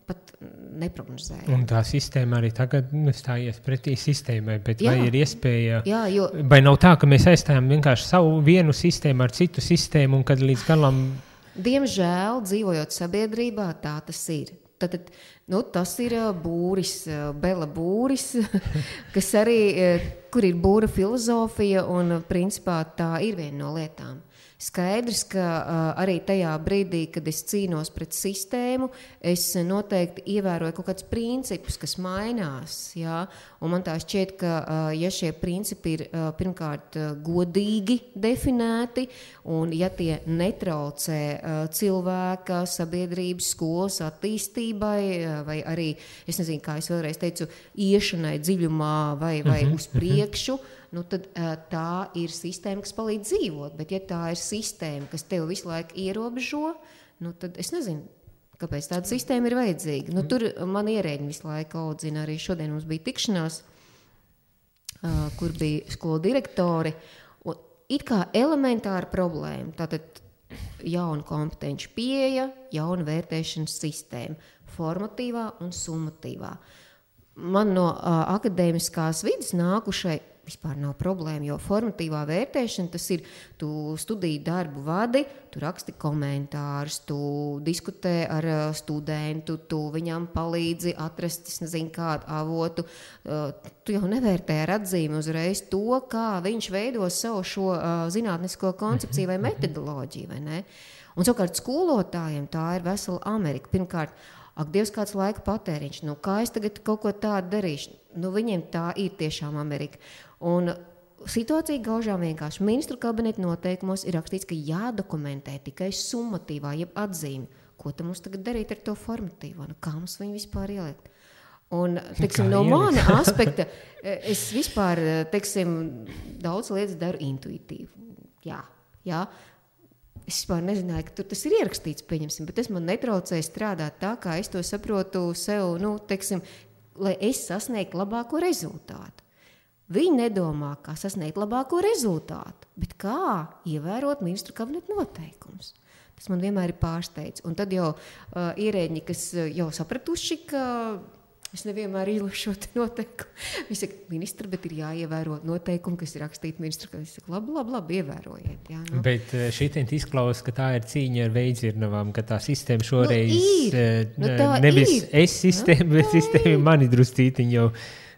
pat neprognozējami. Un tā sistēma arī tagad stājies pretī sistēmai, bet jā. Vai ir iespēja, jā, jo... vai nav tā, ka mēs aizstājam vienkārši savu vienu sistēmu ar citu sistēmu un kad līdz galam... Diemžēl, dzīvojot sabiedrībā, tā tas ir. Tad, tas ir būris, Bela būris, kas arī, kur ir būra filozofija, un principā tā ir viena no lietām. Skaidrs, ka arī tajā brīdī, kad es cīnos pret sistēmu, es noteikti ievēroju kaut kādus principus, kas mainās. Jā? Un man tā šķiet, ka ja šie principi ir pirmkārt godīgi definēti, un ja tie netraucē cilvēka, sabiedrības, skolas attīstībai, vai arī, es nezinu, kā es vēlreiz teicu, iešanai dziļumā vai uz priekšu, tad tā ir sistēma, kas palīdz dzīvot. Bet ja tā ir sistēma, kas tev visu laiku ierobežo, tad es nezinu, kāpēc tāda sistēma ir vajadzīga. Tur man ierēģi visu laiku audzina. Arī šodien mums bija tikšanās, kur bija skolu direktori. Un it kā elementāra problēma. Tātad jauna kompetenci pieeja, jauna vērtēšanas sistēma, formatīvā un summatīvā. Man no akadēmiskās vidas nākušai vispār nav problēma, jo formatīvā vērtēšana tas ir, tu studiju darbu vadi, tu raksti komentārus, tu diskutē ar studentu, tu viņam palīdzi atrast, es nezinu, kādu avotu. Tu jau nevērtē ar atzīmi uzreiz to, kā viņš veido savu šo zinātnisko koncepciju vai metodoloģiju, vai ne? Un savukārt skolotājiem tā ir vesela Amerika. Pirmkārt, ak, Dievs, kāds laika patēriņš, nu kā es tagad kaut ko tādu darīšu? Nu, viņiem tā ir tiešām Amerika. Un situācija gaužām vienkārši. Ministru kabineta noteikumos ir rakstīts, ka jādokumentē tikai summatīvā, jeb atzīme. Ko tam mums tagad darīt ar to formatīvo? Nu, kā mums viņu vispār ielikt? Un, teiksim, no mana aspekta, es vispār, teiksim, daudz lietas daru intuitīvi. Jā. Es vispār nezināju, ka tur tas ir ierakstīts, pieņemsim, bet tas man netraucēja strādāt tā, kā es to saprotu sev, nu, teiksim, lai es sasniegtu labāko rezultātu. Viņi nedomā, kā sasniegt labāko rezultātu, bet kā ievērot ministru kabineta noteikumus. Tas man vienmēr ir pārsteidz. Un tad jau ierēģi, kas jau sapratuši, ka es nevienmēr īlušu šo noteikumu. Viņi saka, ministra, bet ir jāievēro noteikumi, kas ir rakstīti ministru kabinetā. Es saku, labi, ievērojiet. Jā, nu. Bet šitien izklausās, ka tā ir cīņa ar veidzirnavām, ka tā sistēma šoreiz nevis ir. Es sistēma, bet sistēma mani druscītiņi jau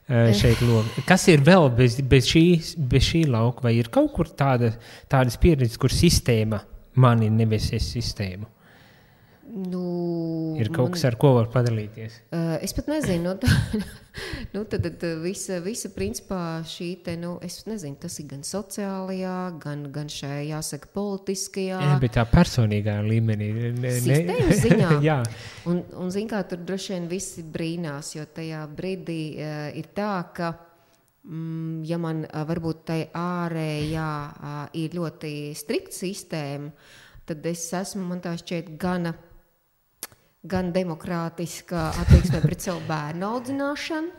šeit loma. Kas ir vēl bez šī lauka? Vai ir kaut kur tādas pieredzes, kur sistēma mani nevis es sistēmu? Ir kaut kas, ar ko var padalīties? Es pat nezinu. Tad visa principā šī te, es nezinu, tas ir gan sociālajā, gan šajā, jāsaka, politiskajā. Bet tā personīgā līmenī. Sistēmas ziņā. Jā. Un zin kā, tur droši vien visi brīnās, jo tajā brīdī ir tā, ka ja man varbūt tai ārējā ir ļoti strikta sistēma, tad es esmu, man tā šķiet, gan demokrātiska attieksme pret savu bērnu audzināšanu,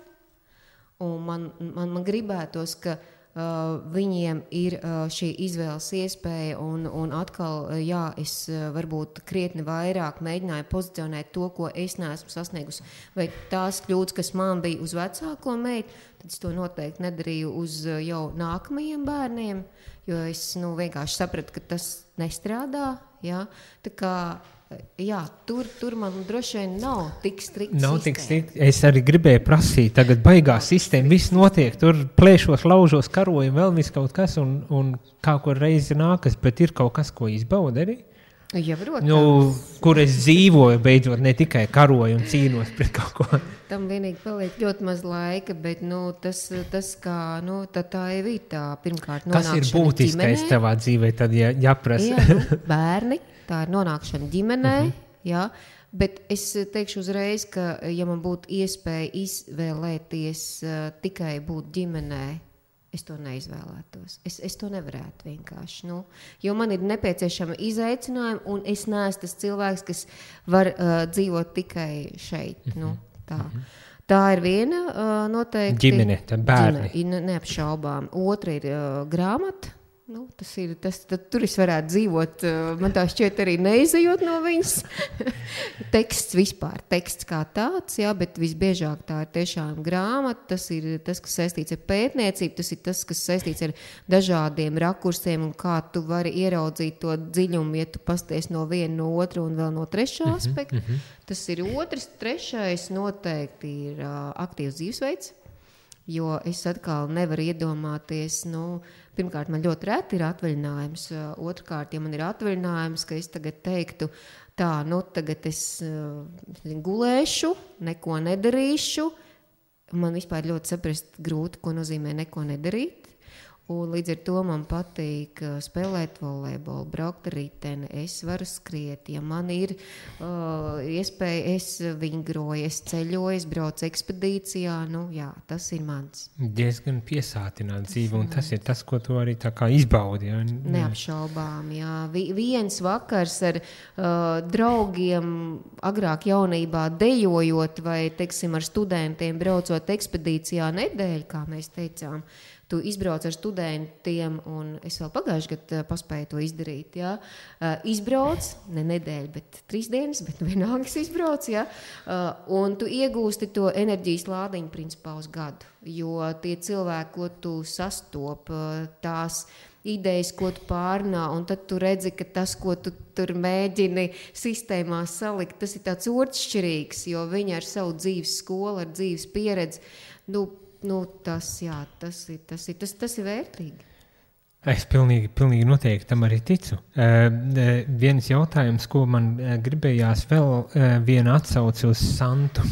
un man gribētos, ka viņiem ir šī izvēles iespēja, un atkal, jā, es varbūt krietni vairāk mēģināju pozicionēt to, ko es neesmu sasniegusi, vai tās kļūdas, kas man bija uz vecāko meitu, tad es to noteikti nedarīju uz jau nākamajiem bērniem, jo es vienkārši sapratu, ka tas nestrādā, jā, tā kā jā, tur man droši vien nav tik strikta sistēma. Es arī gribēju prasīt, tagad baigā sistēma, viss notiek, tur plēšos, laužos, karojam, vēl viss kaut kas, un kā kur reizi nākas, bet ir kaut kas, ko izbauda arī? Ja, protams. Kur es dzīvoju, beidzot, ne tikai karoju un cīnos pret kaut ko. Tam vienīgi paliek ļoti maz laika, bet tas kā, tā jau ir tā pirmkārt nonākšana ģimenē. Kas ir būtiskais tavā dzīvē, tad jāprasa? Jā, bērni, tā ir nonākšana ģimenē, jā, bet es teikšu uzreiz, ka ja man būtu iespēja izvēlēties tikai būt ģimenē, es to neizvēlētos. Es to nevarētu vienkārši. Jo man ir nepieciešama izaicinājuma, un es neesmu tas cilvēks, kas var dzīvot tikai šeit. Tā ir viena noteikti. Ģimene, tā bērni. Neapšaubām. Otra ir grāmata. Tur es varētu dzīvot, man tā šķiet arī neizejot no viņas. Teksts vispār, teksts kā tāds, jā, bet visbiežāk tā ir tiešām grāmata, tas ir tas, kas saistīts ar pētniecību, tas ir tas, kas saistīts ar dažādiem rakursiem un kā tu vari ieraudzīt to dziļumu, ja tu pasties no viena, no otra un vēl no trešā aspekta. Tas ir otrs, trešais noteikti ir aktīvs dzīvesveids. Jo es atkal nevaru iedomāties, pirmkārt, man ļoti reti ir atvaļinājums, otrkārt, ja man ir atvaļinājums, ka es tagad teiktu, tagad es gulēšu, neko nedarīšu, man vispār ļoti saprast grūti, ko nozīmē neko nedarīt. Un līdz ar to man patīk spēlēt volejbolu, braukt ar riteni, es varu skriet, ja man ir iespēja, es vingroju, es ceļoju, es braucu ekspedīcijā, jā, tas ir mans. Diezgan piesātināt dzīvi, un tas ir tas, ko tu arī tā kā izbaudi. Ja? Neapšaubām, jā. Viens vakars ar draugiem agrāk jaunībā dejojot vai, teiksim, ar studentiem braucot ekspedīcijā nedēļu, kā mēs teicām, tu izbrauc ar studentiem, un es vēl pagājuši gadu paspēju to izdarīt, jā. Izbrauc, ne nedēļu, bet 3 dienas, bet vienalga izbrauc, jā. Un tu iegūsti to enerģijas lādiņu principā uz gadu, jo tie cilvēki, ko tu sastop, tās idejas, ko tu pārnā, un tad tu redzi, ka tas, ko tu tur mēģini sistēmā salikt, tas ir tāds otršķirīgs, jo viņi ar savu dzīves skolu, ar dzīves pieredzi, tas ir vērtīgi. Es pilnīgi noteikti tam arī ticu. Viens jautājums, ko man gribējās vēl viena atsauce uz Santu.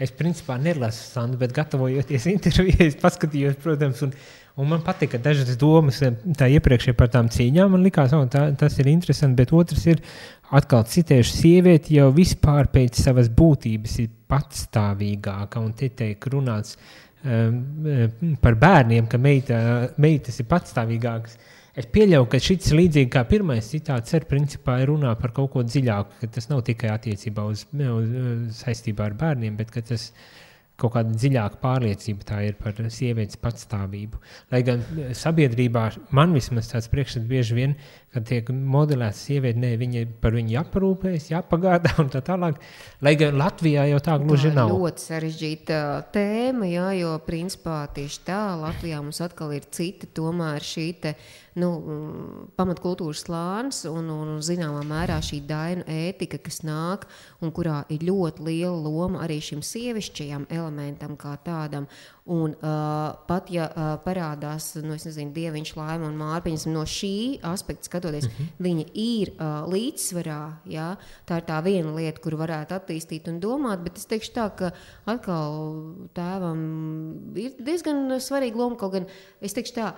Es principā nelasu Santu, bet gatavojoties intervijai, es paskatījos, protams, un man patika dažas domas tā iepriekšēji par tām cīņām. Man likās, tas ir interesanti, bet otrs ir atkal citējuši, sievieti jau vispār pēc savas būtības ir patstāvīgāka, un te tiek runāts par bērniem, ka meitas ir patstāvīgākas. Es pieļauju, ka šis līdzīgi kā pirmais citāts principā ir runā par kaut ko dziļāku, ka tas nav tikai attiecībā uz saistībā ar bērniem, bet ka tas kaut kāda dziļāka pārliecība tā ir par sievietes patstāvību. Lai gan sabiedrībā man vismaz tāds priekšstats bieži vien, kad tiek modelēts sievieti, par viņu jāparūpējas, jāpagādā un tā tālāk. Lai gan Latvijā jau tā gluži nav. Tā ļoti sarežģīta tēma, jā, jo principā tieši tā Latvijā mums atkal ir cita tomēr šī te, pamatkultūras slānis un zināmā mērā šī dainu ētika, kas nāk un kurā ir ļoti liela loma arī šim sievišķajam elementam kā tādam. Un pat ja parādās, Dieviņš, Laima un Mārpiņas, no šī aspekta skatoties, viņi ir līdzsvarā, jā, tā ir tā viena lieta, kuru varētu attīstīt un domāt, bet es teikšu tā, ka atkal tēvam ir diezgan svarīga loma, kaut gan es teikšu tā,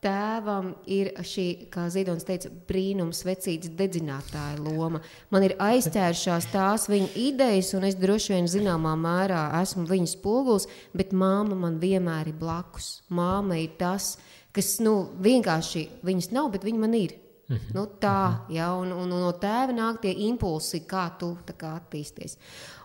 tēvam ir šī, kā Ziedonis teica, brīnums vecītas dedzinātāja loma. Man ir aizķēršās tās viņa idejas, un es droši vien zināmā mērā esmu viņas spogulis, bet māma man vienmēr ir blakus. Māma ir tas, kas, vienkārši viņas nav, bet viņa man ir. Jā, un no tēva nāk tie impulsi, kā tu tā kā attīsties.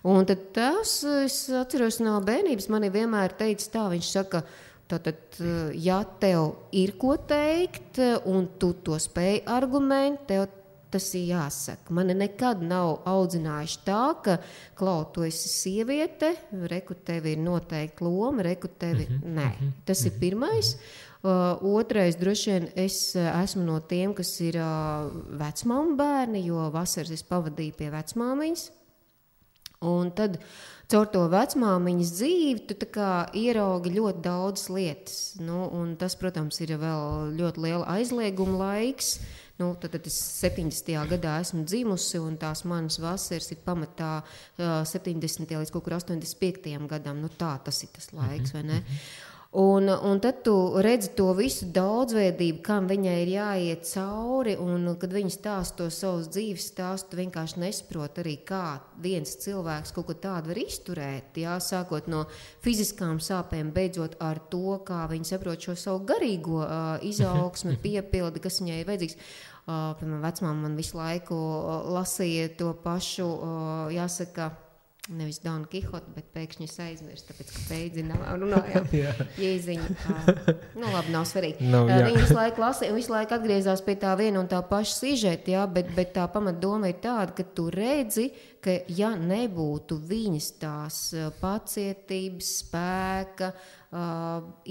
Un tad tas, es atceros no bērnības, man ir vienmēr teicis tā, viņš saka, tātad, ja tev ir ko teikt, un tu to spēj argument, tev tas ir jāsaka. Mani nekad nav audzinājuši tā, ka, Klau, tu esi sieviete, reku tev ir noteikti loma, reku tevi, nē. Tas ir pirmais. Otrais, droši vien, es esmu no tiem, kas ir vecmāmu bērni, jo vasaras es pavadīju pie vecmāmiņas. Un tad caur to vecmāmiņas dzīvi tu tā kā ieraugi ļoti daudz lietas. Un tas, protams, ir vēl ļoti liela aizlieguma laiks. Tad es 70. gadā esmu dzimusi, un tās manas vasaras ir pamatā 70. līdz kaut kur 85. gadam. Tas ir tas laiks, vai ne? Un tad tu redzi to visu daudzveidību, kam viņai ir jāiet cauri, un kad viņa stāsta to savus dzīves stāstu, tu vienkārši nesaproti arī, kā viens cilvēks kaut ko tādu var izturēt, jā, sākot no fiziskām sāpēm, beidzot ar to, kā viņa saprot šo savu garīgo izaugsmi, piepildi, kas viņai ir vajadzīgs. Piemēram, vecmāma man visu laiku lasīja to pašu, jāsaka, nevis Donu Kihotu, bet pēkšņi es aizmirstu, tāpēc, ka beidzinām runājām Jēziņu. Labi, nav svarīgi. Viņi visu laiku lasīja un visu laiku atgriezās pie tā viena un tā paša sižeta, jā, bet tā pamatdoma ir tāda, ka tu redzi, ka ja nebūtu viņas tās pacietības, spēka,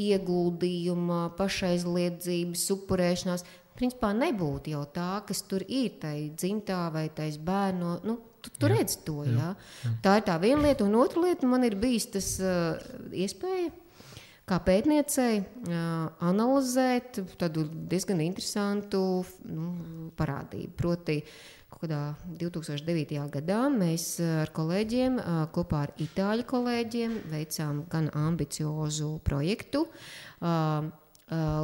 ieguldījuma, pašaizliedzības, upurēšanās, principā nebūtu jau tā, kas tur ir, tai dzimtā vai tais bērno, tu redz to, jā. Tā ir tā viena lieta, un otra lieta man ir bijis tas iespēja, kā pētniecei, analizēt tādu diezgan interesantu parādību. Proti, kaut kādā 2009. gadā mēs ar kolēģiem, kopā ar itāļu kolēģiem, veicām gan ambiciozu projektu,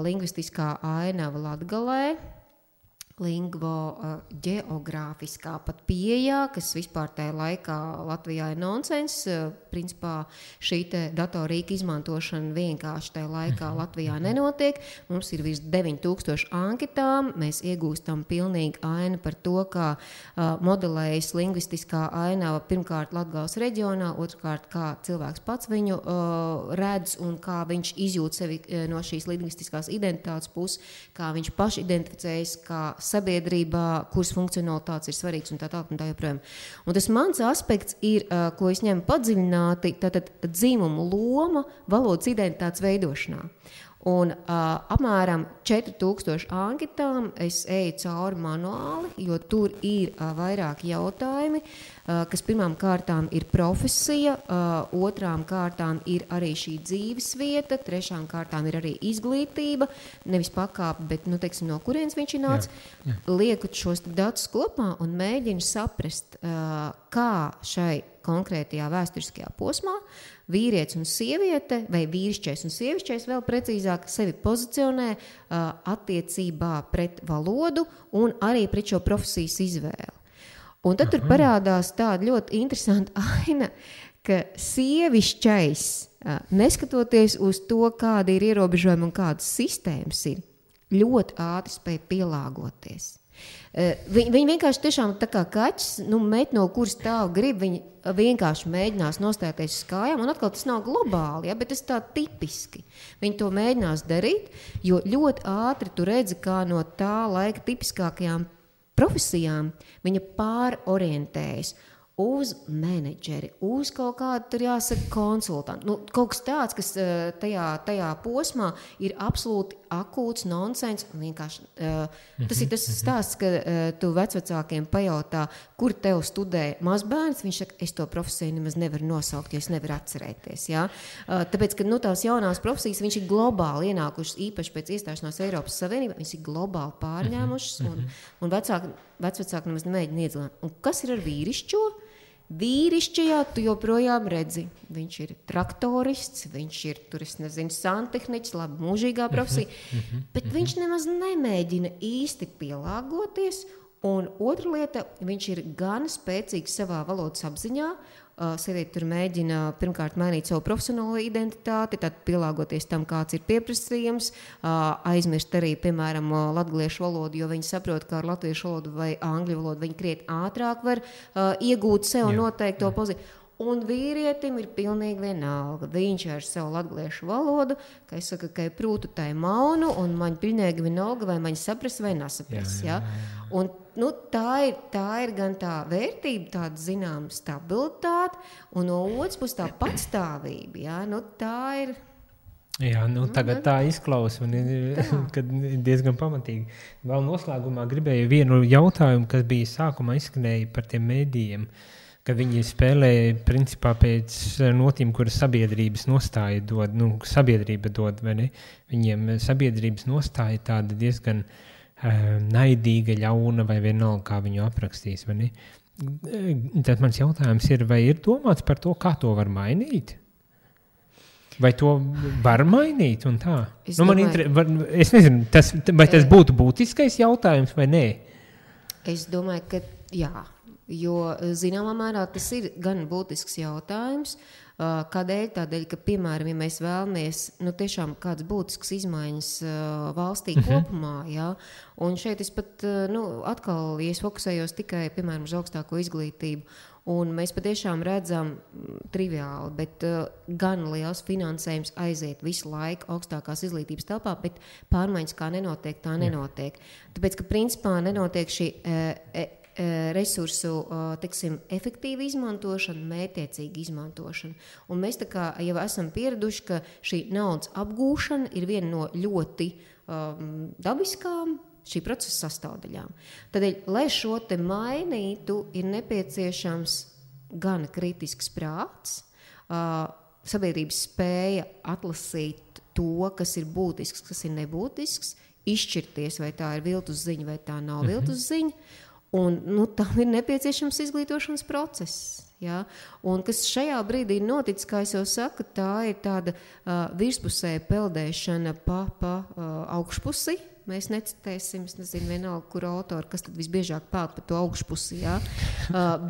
lingvistiskā ainava Latgalē, geogrāfiskā pat pieejā, kas vispār tajā laikā Latvijā ir nonsens. Principā šī te datorīka izmantošana vienkārši tajā laikā Latvijā nenotiek. Mums ir virs 9000 anketām. Mēs iegūstam pilnīgi ainu par to, kā modelējas lingvistiskā ainava pirmkārt Latgales reģionā, otrkārt kā cilvēks pats viņu redz un kā viņš izjūt sevi no šīs lingvistiskās identitātes puses, kā viņš paši identificējas, kā sabiedrībā, kuras funkcionalitātes ir svarīgs un tā joprojām. Un tas mans aspekts ir, ko es ņemu padziļināti, tātad dzīmumu loma valodas identitātes veidošanā. Un apmēram 4000 anketām es eju cauri manuāli, jo tur ir vairāki jautājumi, kas pirmām kārtām ir profesija, otrām kārtām ir arī šī dzīves vieta, trešām kārtām ir arī izglītība, nevis pakāpe, bet, teiksim, no kurienes viņš ir nācis. Lieku šos datus kopā un mēģinu saprast, kā šai konkrētajā vēsturiskajā posmā vīrietis un sieviete, vai vīrišķais un sievišķais vēl precīzāk sevi pozicionē attiecībā pret valodu un arī pret šo profesijas izvēli. Un tad tur parādās tāda ļoti interesanta aina, ka sievišķais, neskatoties uz to, kādi ir ierobežojumi un kādas sistēmas ir, ļoti ātri spēj pielāgoties. Viņi vienkārši tiešām tā kā kaķis, met no kuras stāv grib, viņi vienkārši mēģinās nostāties uz kājām, un atkal tas nav globāli, bet tas tā tipiski. Viņi to mēģinās darīt, jo ļoti ātri tu redzi, kā no tā laika tipiskākajām profesijām viņa pārorientējas uz menedžeri, uz kaut kādu, tur jāsaka, konsultantu. Kaut kas tāds, kas tajā posmā ir absolūti akūts nonsens. Vienkārši, tas ir tas stāsts, ka tu vecvecākiem pajautā, kur tev studē mazbērns, viņš saka, es to profesiju nemaz nevaru nosaukt, jo es nevaru atcerēties. Ja? Tāpēc, ka tās jaunās profesijas, viņš ir globāli ienākušas, īpaši pēc iestāšanās Eiropas Savienībā, viņš ir globāli pārņēmušas, un vecvecāki nemaz nemēģina iedzīvot. Un kas ir ar vīrišķo? Vīrišķajā tu joprojām redzi, viņš ir traktorists, viņš ir, santehniķis, labi mūžīgā profesija, bet viņš nemaz nemēģina īsti pielāgoties, un otra lieta, viņš ir gan spēcīgs savā valodas apziņā, sieviete tur mēģina pirmkārt mainīt savu profesionālo identitāti, tad pielāgoties tam, kāds ir pieprasījums, aizmirst arī, piemēram, latgaliešu valodu, jo viņi saprot, ka ar latviešu valodu vai angļu valodu viņi krietni ātrāk var iegūt sev noteikto pozīciju. Un vīrietim ir pilnīgi vienalga. Viņš ar savu latgaliešu valodu, ka es saku, ka ir prūtu tai maunu, un man pilnīgi vienalga, vai man sapras vai nesapras. Jā. Un tā ir gan tā vērtība, tāda zināma stabilitāte, un no otras puses tā patstāvība. Jā. Tā ir... Jā, tagad tā izklausa un kad diezgan pamatīgi. Vēl noslēgumā gribēju vienu jautājumu, kas bija sākumā izskanēja par tiem mēdījiem, ka viņi spēlē principā pēc notīm, kuras sabiedrības nostāja dod, sabiedrība dod, vai ne? Viņiem sabiedrības nostāja tāda diezgan naidīga, ļauna vai vienalga, kā viņu aprakstīs, vai ne? Tad mans jautājums ir, vai ir domāts par to, kā to var mainīt? Vai to var mainīt un tā? Es nezinu, vai tas būtu būtiskais jautājums vai nē? Es domāju, ka jā. Jo zināmā mērā tas ir gan būtisks jautājums. Kādēļ? Tādēļ, ka, piemēram, ja mēs vēlamies tiešām kādas būtiskas izmaiņas valstī kopumā, jā, un šeit es pat, atkal, ja es fokusējos tikai, piemēram, uz augstāko izglītību, un mēs patiešām redzam triviāli, bet gan liels finansējums aiziet visu laiku augstākās izglītības telpā, bet pārmaiņas kā nenotiek, tā nenotiek. Tāpēc, ka principā nenotiek šī resursu, efektīva izmantošana, mērķiecīga izmantošana. Un mēs tā kā jau esam pieraduši, ka šī naudas apgūšana ir viena no ļoti dabiskām šī procesa sastāvdaļām. Tādēļ, lai šo te mainītu, ir nepieciešams gan kritisks prāts, sabiedrības spēja atlasīt to, kas ir būtisks, kas ir nebūtisks, izšķirties, vai tā ir viltus ziņa, vai tā nav viltus ziņa. Un tam ir nepieciešams izglītošanas process. Ja? Un kas šajā brīdī ir noticis, kā es jau saku, tā ir tāda virspusēja peldēšana pa augšpusi, mēs necitēsim, es nezinu, vienalga, kur autori, kas tad visbiežāk peld par to augšpusi, jā.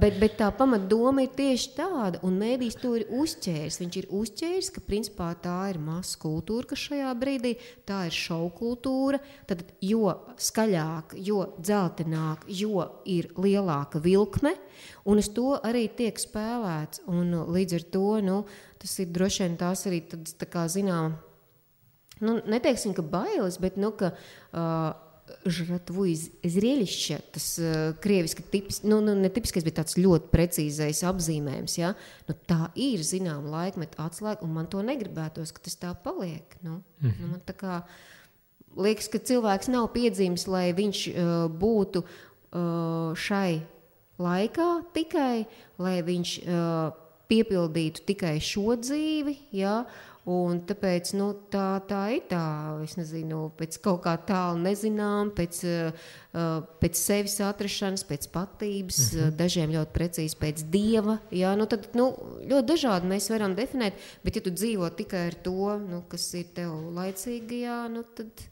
Bet tā pamatdoma ir tieši tāda, un mēdījis to ir uzķēris. Viņš ir uzķēris, ka principā tā ir masa kultūra, kas šajā brīdī, tā ir šou kultūra, tad jo skaļāk, jo dzeltenāk, jo ir lielāka vilkme, un uz to arī tiek spēlēts, un līdz ar to, tas ir droši vien tās arī tāds, tā kā zinām, neteiksim, ka bailes, bet, ka žratvu zrelišķa, tas krieviski netipiskais, bet tāds ļoti precīzais apzīmējums, ja? Tā ir, zinām, laikmeta atslēga, un man to negribētos, ka tas tā paliek. Man tā kā liekas, ka cilvēks nav piedzīvis, lai viņš būtu šai laikā tikai, lai viņš piepildītu tikai šo dzīvi, ja? Un tāpēc tā ir tā, es nezinu, pēc kaut kā tālu nezinām, pēc sevis atrašanas, pēc patības, dažiem ļoti precīzi pēc dieva. Jā, tad ļoti dažādi mēs varam definēt, bet ja tu dzīvo tikai ar to, kas ir tev laicīgajā, tad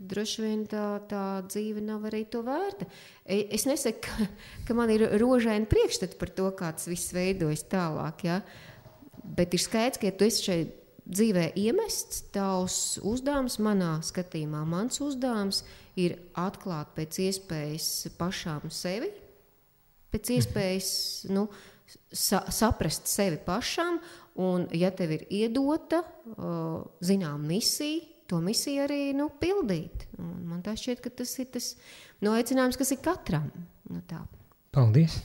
droši vien tā dzīve nav arī to vērta. Es nesaku, ka man ir rožaini priekšstati par to, kā tas viss veidojas tālāk, jā. Bet ir skaidrs, ka ja tu esi šeit dzīvē iemests, tavs uzdevums manā skatījumā, mans uzdevums ir atklāt pēc iespējas pašām sevi, pēc iespējas saprast sevi pašam, un ja tev ir iedota, zinām, misija, to misiju arī pildīt. Un man tā šķiet, ka tas ir tas aicinājums, kas ir katram. Tā. Paldies!